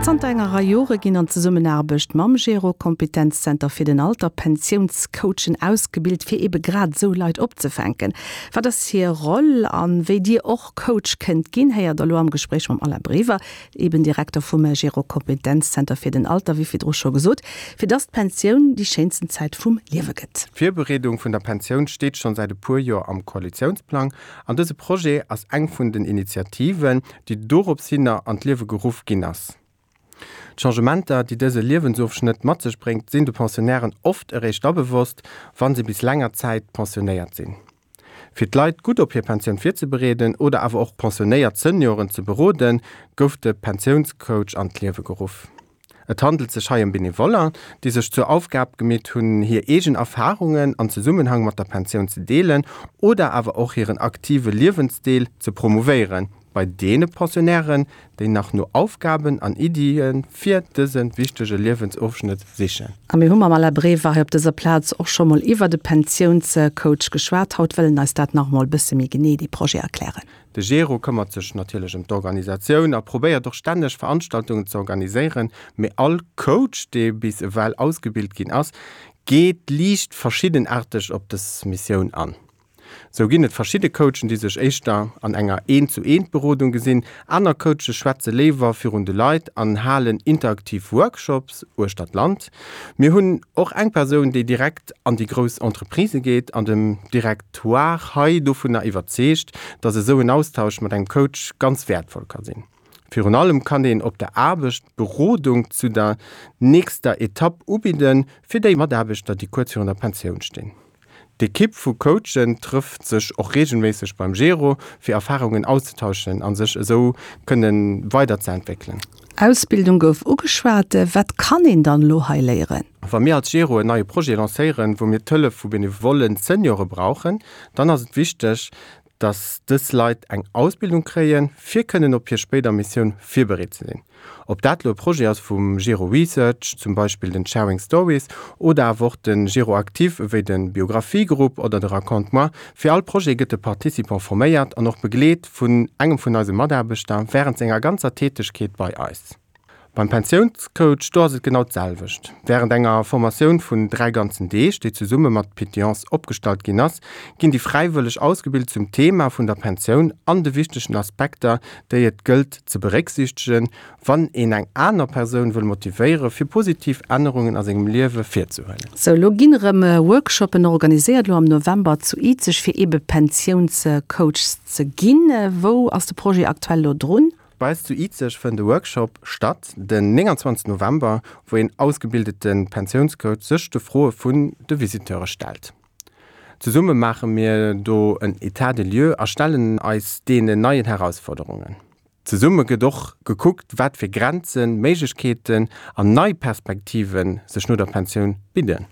Zanter enger Rei Jore ginn an Zesummenaarbecht mam Gero Kompetenzzenter fir den Alter Pensiounscoachen ausgebilt, fir ebe grad esou Leit opzefänken. Wat ass hir Roll an wéi Dir och Coach kënnt ginn, héiert der elo am Gespréich mam Alain Brever, eben Direkter vum Gero Kompetenzzenter fir den Alter, wéi virdru scho gesot, fir dass d'Pensioun déi schéinsten Zäit vum Liewe gëtt. D'Virbereedung vun der Pensioun steet schonn säit e puer Joer am Koalitiounsplang an dëse Projet ass eng vun den Initiativen, déi dorops hinner an d'Liewe geruff ginn ass. D'Changementer, déi dëse Liewensofschnëtt mat sech bréngt, sinn de Pensionnairen oft eréischt da bewosst, wa se bis länger Zäit pensionéiert sinn. Fir d'Leit gutt op hir Pensioun virzebereeden oder awer och pensionéiert Senioren ze beroden, gouf de Pensiounscoach an d'Liewe geruff. Et handelt sech hei ëm Benevoller, déi sech zur Aufgab gemeet hunn, hir eegen Erfarungen an Zesummenhang mat der Pensioun ze deelen oder awer och hiren aktive Liewensdeel ze promouvéieren bei deene Pensionnairen, déi nach no Aufgaben an Iddie fir dëse wichtege Liewensofschnëtt sichen. A mir hu mam Alain Brever hei op dëser Plaz och scho mol iwwert e Pensiounscoach geschwat. Haut wëll en eis dat nach emol e bësse méi genee, dee Projet erklären. De Gero këmmert sech natierlech ëm d'Organisatioun a probéiert och stänneg Veranstaltungen ze organiséieren, mee all Coach, dee bis ewell ausgebilt ginn ass, geet liicht verschiddenaarteg op dës Missioun an. Sou ginn et verschidde Coachen, déi sech éischter an enger Eent-zu-Eent-Berodung gesinn, aner Coache schwätze léiwer virun de Leit an halen interaktiv Workshops uechter d'Land. Mir hunn och eng Persoun, déi direkt an déi grouss Entreprisë geet an dem Directoire hei dovunner iwwerzeegt, dass esou en Austausch mat engem Coach ganz wäertvoll ka sinn. Virun allem kann een op der Aarbecht Berodung zu der nächster Etapp ubidden, fir déi Mataarbechter, déi kuerz virun der Pensioun stinn. D'Ekipp vu Coachen trëfft sech och reegelméisseg beim Gero, fir Erfarungen auszetauschen a sech esou kënne weiderzeentwéckelen. Ausbildung gouf ugeschwat. Wat kann een dann elo hei léieren? Wa mir als Gero en neie Projet lancéieren, wou mir d'Hëllef vu benevollen Seniore brauchen, dann ass et wichteg, dass dës Leit eng Ausbildung kréien, fir kënnen op hir spéider Missioun virbereet ze sinn. Ob dat lo e Projet ass vum Gero Research, zum Beispill den Sharing Stories, oder awer och de Gero Actif ewéi de Biographie-Grupp oder de Raconte-moi, fir all Projet gëtt de Participant forméiert an och begleet vun engem vun eise Mataarbechter wärend senger ganzer Tätegkeet bei eis. Beim Pensiounscoach, do ass et genau d'selwecht. Wärend enger Formatioun vun 3 ganzen Deeg, déi zesumme mat Pétillance opgestallt ginn ass, ginn déi Fräiwëlleg ausgebilt zum Thema vun der Pensioun an de wichtegen Aspekter, déi et gëllt ze berécksiichtegen, wann een eng aner Persoun wëll motivéiere fir positiv Ännerungen a sengem Liewe virzehuelen. Sou, elo ginn erëm Workshoppen organiséiert, elo am November zu Izeg, fir eebe Pensiounscoachs ze ginn. Wou ass de Projet aktuell elo drun? Bei eis zu Izeg fënnt e Workshop statt den 29 November, wou een ausgebildete Pensiounscoach sech de Froe vun de Visiteure stellt. Zesumme maache mir do en Etat des lieux a stellen eis deenen neien Herausforderungen. Zesumme gëtt och gekuckt, wat fir Grenzen, Méiglechkeeten an nei Perspektive sech no der Pensioun bidden.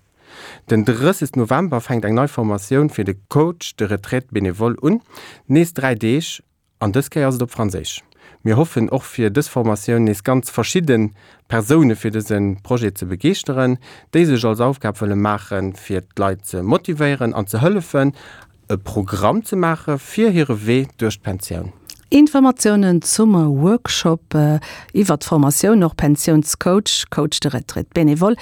Den 30 November fänkt eng nei Formatioun fir de Coach de retraite bénévole un, nees 3 Deeg An dës Kéier ass et op Franséisch. Mir hoffen och fir dës Formatioun nees ganz verschidde Persoune fir dëse Projet ze begeeschteren, déi sech als Aufgab wëlle maachen, fir d'Leit ze motivéieren an ze hëllefen, e Programm ze maache fir hire Wee duerch d'Pensioun. Informatiounen zum Workshop iwwert d'Formatioun, och Pensiounscoach, Coach de retraite bénévole.